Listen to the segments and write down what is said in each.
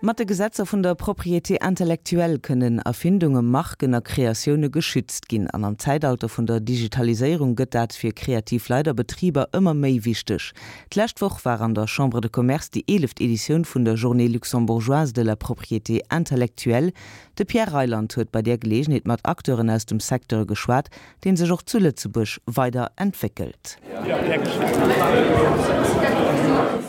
Mat de Gesetzer vun der Propriété intellectuelle kënnen Erfindunge, Marken a Kreatioune geschützt ginn. An am Zäitalter vun der Digitaliséierung gëtt dat fir kreativ Leit a Betriber ëmmer méi wichteg. D'lescht Woch war an der Chambre de Commerce déi eeleft Editioun vun der Journée luxembourgeoise de la propriété intellectuelle. De Pierre Reyland huet bei där Geleegenheet mat Acteuren aus dem Secteur geschwat, deen sech och zu Lëtzebuerg weider entwéckelt.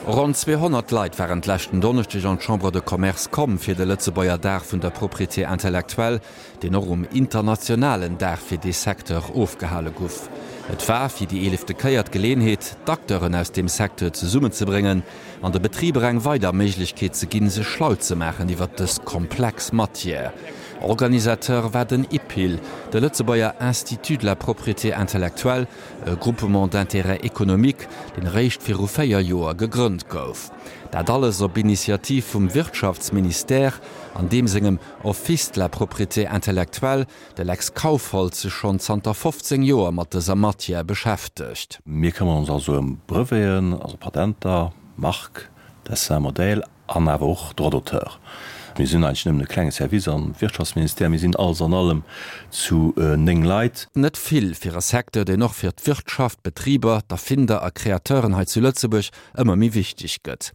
Ronn 200 Leit waren d'leschten Donneschdeg an d'Chambre de Commerce komm fir de Lëtzebuerger Dag vun der Propriété intellectuelle, deen och um internationalen Dag fir dee Secteur ofgehale guff. Et war fir déi eelefte Kéier d'Geleenheet, d'Acteuren aus deem Secteur zesummenzebréngen an de Betriber eng weider Méiglechkeet ze ginn, sech schlau ze maachen iwwert dës komplex Matière. Organisateur war den IPIL, de Lëtzebuerger Institut de la propriété intellectuelle, e Groupement d'intérêt économique, deen eréischt viru 4 Joer gegrënnt gouf. Dat alles op Initiativ vum Wirtschaftsministère an deem sengem Office de la propriété intellectuelle, de Lex Kaufhold sech schonn zanter 15 Joer mat dëser Matière beschäftegt. Mir këmmeren ons also ëm Breveten, also Patenter, Marque, Dessin, Modèle An awer och Droits d'auteur. Mir sinn eigentlech nëmmen e klenge Service am Wirtschaftsministère. Mir sinn alles an allem zu 9 Leit. Net vill fir e Secteur, deen och fir d'Wirtschaft, d'Betriber, d'Erfinder a Kreateuren hei zu Lëtzebuerg ëmmer méi wichteg gëtt.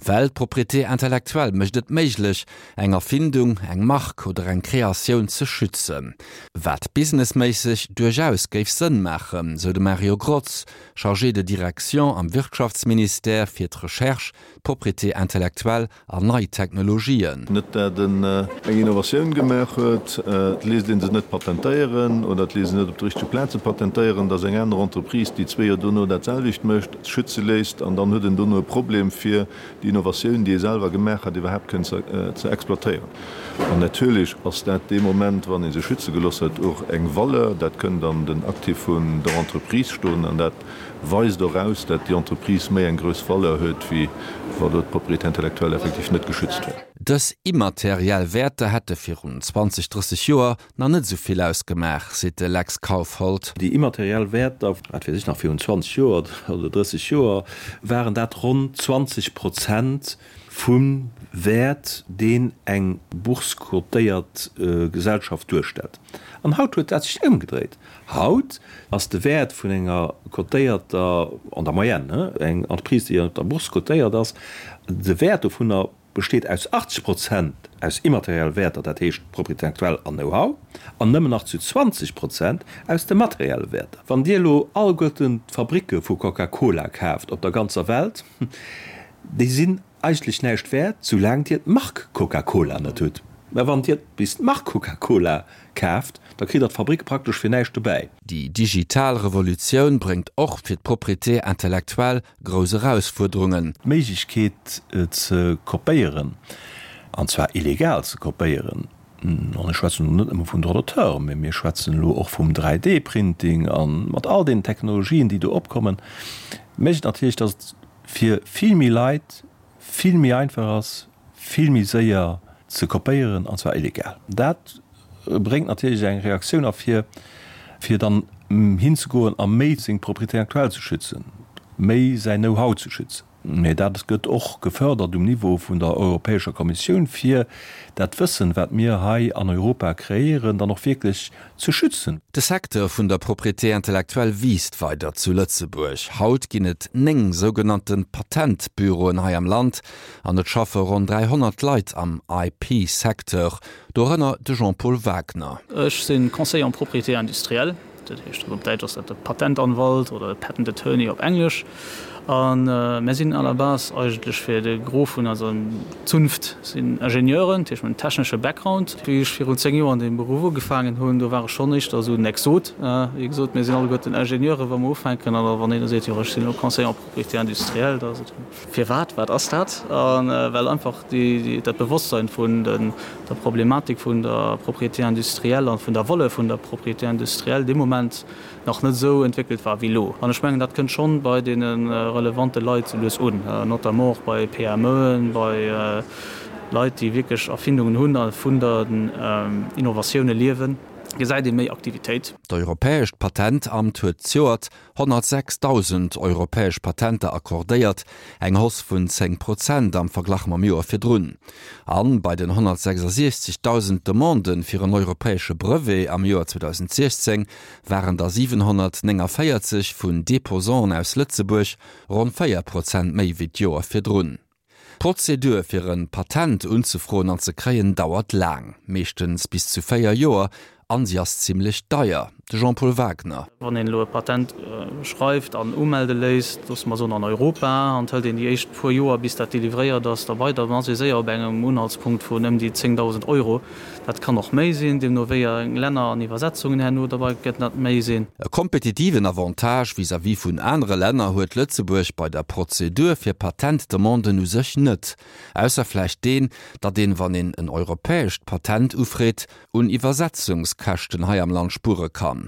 Well d'Propriété intellectuelle mécht et méiglech, eng Erfindung, eng Mark oder eng Kreatioun ze schützen. Wat businessméisseg duerchaus géif Sënn maachen, sou de Mario Grotz, Chargé de direction am Wirtschaftsministère fir d'Recherche, Propriété intellectuelle an nei Technologien. Net dat en eng Innovatioun gemaach huet, et léisst ee se net patentéieren oder et léisst een net op de richtege Plaze patentéieren, datt eng aner Entreprise, déi zwee Joer dono dat selwecht mécht, schütze léisst an dann huet en dono e Problem fir déi Innovatioun, déi e selwer gemaach hat, iwwerhaapt kënnen ze exploitéieren. An natierlech ass dat dee Moment, wann ee se schütze gelooss huet, och eng Valeur. Dat kënnt an den Actif vun der Entreprise stoen an dat Weist och aus, dat déi Entreprise méi eng grouss Valeur huet, wéi wa do d'Propriété intellectuelle effektiv net geschützt wär. Dës immateriell Wäerter hätte virun 20, 30 Joer nach net esou vill ausgemaach, seet de Lex Kaufhold. Déi immateriell Wäerter, wat weess ech nach, virun 20 Joer oder 30 Joer waren dat ronn 20 Prozent vum Wäert, deen eng bourse-cotéiert Gesellschaft duerstellt. An haut huet dat sech ëmgedréit. Haut ass de Wäert vun enger cotéierter, an der Moyenne, eng Entreprise, déi op der Bourse cotéiert ass, de Wäert dovunner besteet aus 80 Prozent aus immaterielle Wäerter, dat heescht Propriété intellectuelle an Know-how, an nëmmen nach zu 20 Prozent aus de materielle Wäerter. Wann Dir elo alleguerten d'Fabricke vu Coca-Cola kaaft op der ganzer Welt, déi sinn Eigentlech näischt wäert, soulaang Dir d'Mark Coca-Cola net hutt. Mä wann Dir bis d'Mark Coca-Cola kaaft, da kritt Der d'Fabrik praktesch fir näischt dobäi. Déi digital Revolutioun bréngt och fir d'Propriété intellectuelle grouss Erausfuerderungen. D'Méiglechkeet ze kopéieren, an zwar illegal ze kopéieren, an ech schwätzen elo net nëmme vun Droits d'auteur, mä mir schwätzen elo och vum 3D-Printing a mat all deenen Technologien, déi do opkommen, mécht natierlech, datt et fir vill méi Leit vill méi einfach ass, vill méi séier ze kopéieren, an zwar illegal. Dat bréngt natierlech eng Reaktioun ervir, fir dann hinzegoen a méi seng Propriété intellectuelle ze schützen, méi säin Know-how ze schützen. Mä dat gëtt och gefördert um Niveau vun der Europäescher Kommissioun, fir dat Wëssen, wat mir hei an Europa kreéieren, dann och wierklech ze schützen. De Secteur vun der Propriété intellectuelle wiisst weider zu Lëtzebuerg. Haut ginn et 9 sougenannte Patentbüroen hei am Land an et schaffe ronn 300 Leit am IP-Secteur, dorënner de Jean-Paul Wagner. Ech si Conseiller en propriété industrielle. Dat heescht, op Däitsch ass dat de Patentanwalt oder de Patent Attorney op Englesch. A mär sinn à la base eigentlech fir de Gros vun eiser Zunft sinn Ingenieuren, dat heescht mir hunn en technesche Background. Wéi ech virun 10 Joer an deem Beruff ugefaangen hunn, do war ech schonn éischter esou en Exot. Wéi gesot, mir sinn alleguerten Ingenieuren, wa mer ufänken. An da wann een da seet, jo ech sinn elo Conseiller en propriété industrielle, da ass et, Firwat? Wat ass dat? A well einfach dat Bewosstsein vun der Problematik vun der Propriété industrielle an vun der Valeur vun der Propriété industrielle dee Moment nach net esou entwéckelt war wéi elo. An ech mengen, dat kënnt schonn bei deene relevante Leit sou lues un, notamment och bei PMEen, bei Leit, déi wierklech Erfindungen hunn a vun den Innovatioune liewen. Gesäit ee méi Aktivitéit. D'Europäescht Patentamt huet zejoert 106.000 europäesch Patenter accordéiert, eng Hausse vun 10 Prozent am Verglach mam Joer virdrun. An bei den 166.000 Demanden fir en europäesche Brevet am Joer 2016 waren der 749 vun Deposanten aus Lëtzebuerg, ronn 4 Prozent méi wéi d'Joer virdrun. D'Prozedur fir e Patent unzefroen an ze kréien dauert laang, meeschtens bis zu 4 Joer, an si ass zimmlech deier. De Jean-Paul Wagner. Wann een elo e Patent schreift an umelde léisst, loosse mer soen an Europa, an et hëlt een déi éischt puer Joer bis dat delivréiert ass, da bei, dann ass ee séier op engem Unhaltspunkt vun ëm déi 10.000 Euro. Dat kann och méi sinn, deemno wéi eng Länner an Iwwersetzungen herno derbei gëtt dat méi sinn. E kompetitiven Avantage vis-à-vis vun anere Länner huet Lëtzebuerg bei der Prozedur fir Patentdemanden u sech net, ausser vläicht deen, datt een, wann een en europäescht Patent ufreet, un Iwwersetzungskäschten hei am Land spuere kann.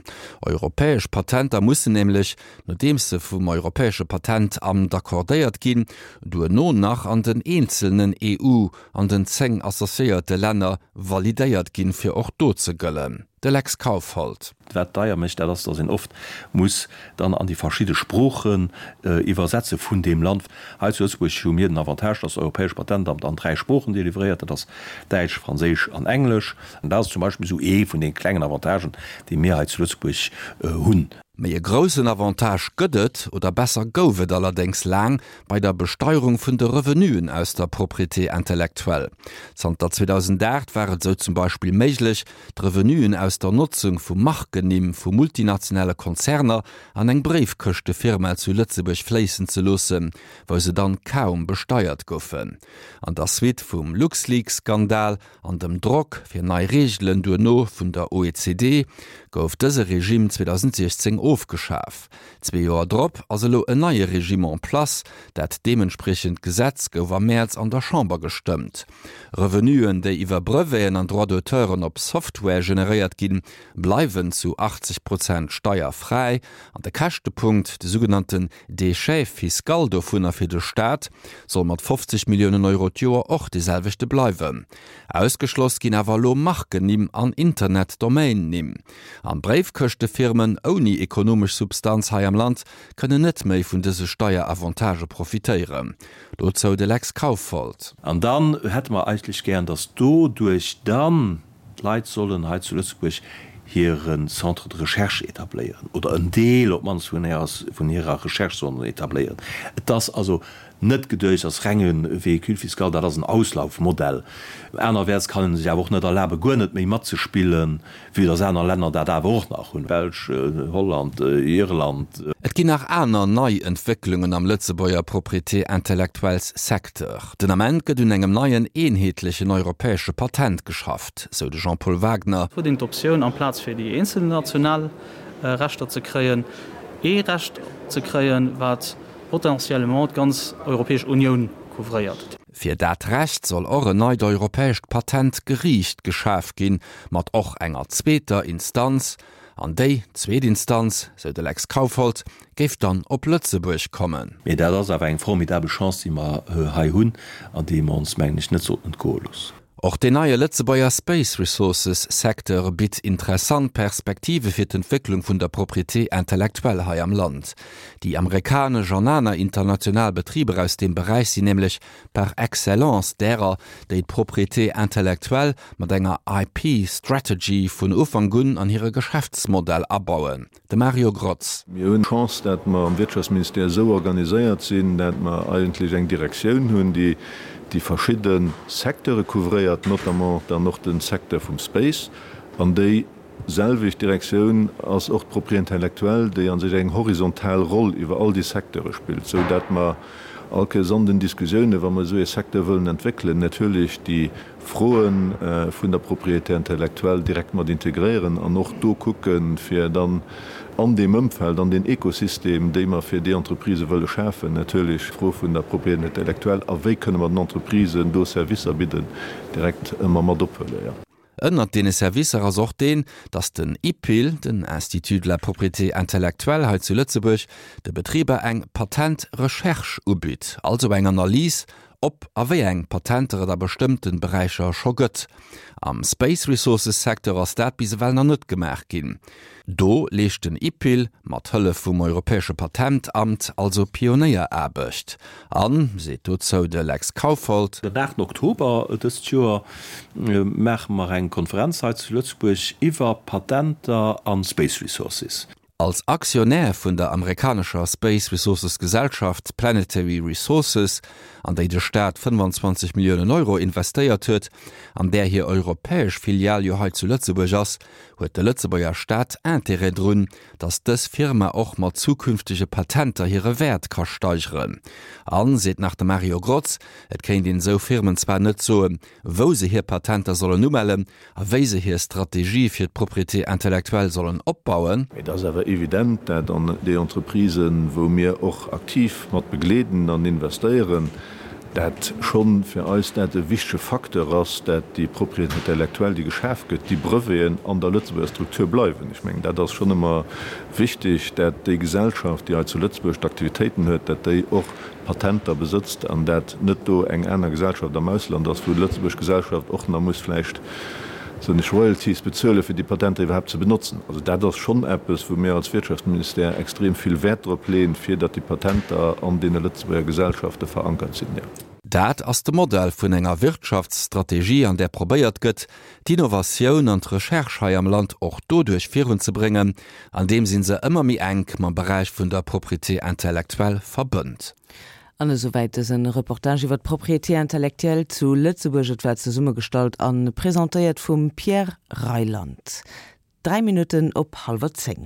Europäesch Patenter mussen nämlech, nodeems se vum Europäesche Patentamt accordéiert ginn, duerno nach an den eenzelnen EU an den 10 associéierte Länner validéiert ginn, fir och do ze gëllen. De Lex Kaufhold. Wat deier mécht, dat ass, datt een oft muss dann an déi verschidde Sproochen iwwersetze vun deem Land. Hei zu Lëtzebuerg hu mir den Avantage, datt d'Europäescht Patentamt an dräi Sproochen delivréiert, dat ass Däitsch, Franséisch an Englesch. An dat ass zum Beispill esou ee vun de klengen Avantagen, déi mir hei zu Lëtzebuerg hunn. Méi e groussen Avantage gëtt et, oder besser gouf et allerdéngs laang, bei der Besteierung vun de Revenuen aus der Propriété intellectuelle. Zanter 2008 war et esou zum Beispill méiglech, d'Revenuen aus der Notzung vu Markennimm vu multinationale Konzerner an eng Bréifkëschtefirma zu Lëtzebuerg fléissen ze loossen, wou se dann kaum besteiert goufen. An der Suite vum LuxLeaks-Skandal An dem Drock fir nei Reegelen duerno vun der OECD gouf dëse Regime 2016 ofgeschaf. Zwee Joer drop ass elo en neie Regime en place. Dat deementspriechend Gesetz gouf am Mäerz an der Chamber gestëmmt. Revenuen, déi iwwer Breveten an Droits d'auteuren op Software generéiert ginn, bleiwen zu 80 Prozent steierfräi. An de Käschtepunkt, de sougenannten Déchet fiscal dovunner fir de Staat soll mat 50 Milliounen Euro d'Joer och dee selwechte bleiwen. Ausgeschloss ginn awer elo Markennimm an Internet-Domain-Nimm. An Bréifkëschtefirmen ouni ekonomesch Substanz hei am Land kënnen net méi vun dëse Steieravantage profitéieren. Dozou de Lex Kaufhold. An dann hätte mer eigentlech gären, dass doduerch dann D'Leit sollen hei zu Lëtzebuerg hire Centre de recherche etabléieren, oder en Deel op d'mannst vun hirer Recherche sollen se etabléieren. Et ass also net geduecht als renge Véhicule fiscal, dat ass en Auslaufmodell. Anerwäerts kann ee sech awer och net erlaben, guer net méi matzespillen, vue dass aner Länner dat awer och nach hunn, Belsch, Holland, Irland. Et ginn nach aner nei Entwécklungen am Lëtzebuerger Propriété intellectuelles Secteur. Den Ament gëtt un engem neien eenheetlechen europäesche Patent geschafft, sou de Jean-Paul Wagner. Huet een d'Optioun, amplaz fir déi eenzel national Rechter ze kréien, ee Recht ze kréien, wat potentiellement d'ganz Europäesch Unioun couvréiert. Fir dat Recht soll och en neit europäescht Patentgeriicht geschaf ginn, mat och enger zweeter Instanz. An déi zweet Instanz, sou de Lex Kaufhold, géif dann op Lëtzebuerg kommen. Mee dat ass awer eng formidabel Chance, déi mer hei hunn an déi mer ons, mengen ech, net sollten entgoe loossen. Och deen neie Lëtzebuerger Space Resources Secteur bitt interessant Perspektive fir d'Entwécklung vun der Propriété intellectuelle hei am Land. Déi amerikanesch an aner international Betriber aus deem Beräich sinn nämlech par excellence därer, déi d'Propriété intellectuelle mat enger IP Strategy vun Ufank un an hire Geschäftsmodell abauen. De Mario Grotz. Mir hunn d'Chance, dat mer am Wirtschaftsministère esou organiséiert sinn, dat mer eigentlech eng Direktioun hunn, déi déi verschidde Secteure couvréiert, notamment dann och de Secteur vum Space. An déi selwecht Direktioun ass och d'Propriété intellectuelle, déi a sech eng horizontal Roll iwwer all déi Secteure spillt, esou dat mer all Kéiers an den Diskussiounen, wa mer esou ee Secteur wëllen entwéckelen, natierlech déi Froe vun der Propriété intellectuelle direkt mat integréieren an och do kucken, fir dann an deem Ëmfeld, an deen Ekosystem, déi mer fir déi Entreprisë wëlle schafen, natierlech d'Fro vun der Propriété intellectuelle a wéi kënne mer den Entreprisen do Servicer bidden, direkt ëmmer mat ophuelen. Ënnert deene Servicer ass och deen, datt den IPIL, den Institut de la propriété intellectuelle hei zu Lëtzebuerg, de Betriber eng Patent-Recherche ubitt, also eng Analys. Ob a wéi eng Patenter et a bestëmmte Beräicher scho gëtt. Am Space Resources Secteur ass dat bis ewell nach net gemaach ginn. Do leescht den IPIL, mat Hëllef vum Europäesche Patentamt, also Pionéieraarbecht. An, seet dozou de Lex Kaufhold. Den 8 Oktober dëst Joer maache mer eng Konferenz hei zu Lëtzebuerg iwwer Patenter a Space Resources. Als Aktionär vun der amerikanescher Space Resources Gesellschaft Planetary Resources, an déi de Staat 25 Milliounen Euro investéiert huet, an där hir europäesch Filial jo hei zu Lëtzebuerg ass, huet de Lëtzebuerger Staat Intérêt drun, datt dës Firma och mat zukünftege Patenter hire Wäert ka steigeren. An, seet nach de Mario Grotz, et kéint een esou Firmen zwar net soen, wou se hir Patenter sollen umellen, A wéi se hir Strategie fir d'Propriété intellectuelle sollen opbauen. Et ass awer evident, dat an déi Entreprisen, wou mir och aktiv mat begleeden an investéieren, dat schonn fir eis dat e wichtege Facteur ass, dat déi Propriété intellectuelle, déi geschaf gëtt, déi Breveten an der Lëtzebuerger Struktur bleiwen. Ech mengen, dat ass schonn ëmmer wichteg, dat déi Gesellschaft, déi hei zu Lëtzebuerg d'Aktivitéiten huet, dat déi och Patenter besëtzt an dat net do eng aner Gesellschaft am Ausland ass, wou d'lëtzebuerg Gesellschaft och nach muss vläicht, soen ech, Royalties bezuelen, fir déi Patenter iwwerhaapt ze benotzen. Also dat ass schonn eppes, wou mir als Wirtschaftsministère extrem vill Wäert drop leeën, fir datt déi Patenter an deene lëtzebuerger Gesellschafte verankert sinn, jo. Dat ass de Modell vun enger Wirtschaftsstrategie, an där probéiert gëtt, d'Innovatioun an d'Recherche hei am Land och doduerch virunzebréngen, andeems een se ëmmer méi enk mam Beräich vun der Propriété intellectuelle verbënnt. An esouwäit dësen Reportage iwwer d'Propriété intellectuelle zu Lëtzebuerg. Et war zesummegestallt an presentéiert vum Pierre Reyland. 3 Minutten op hallwer 10.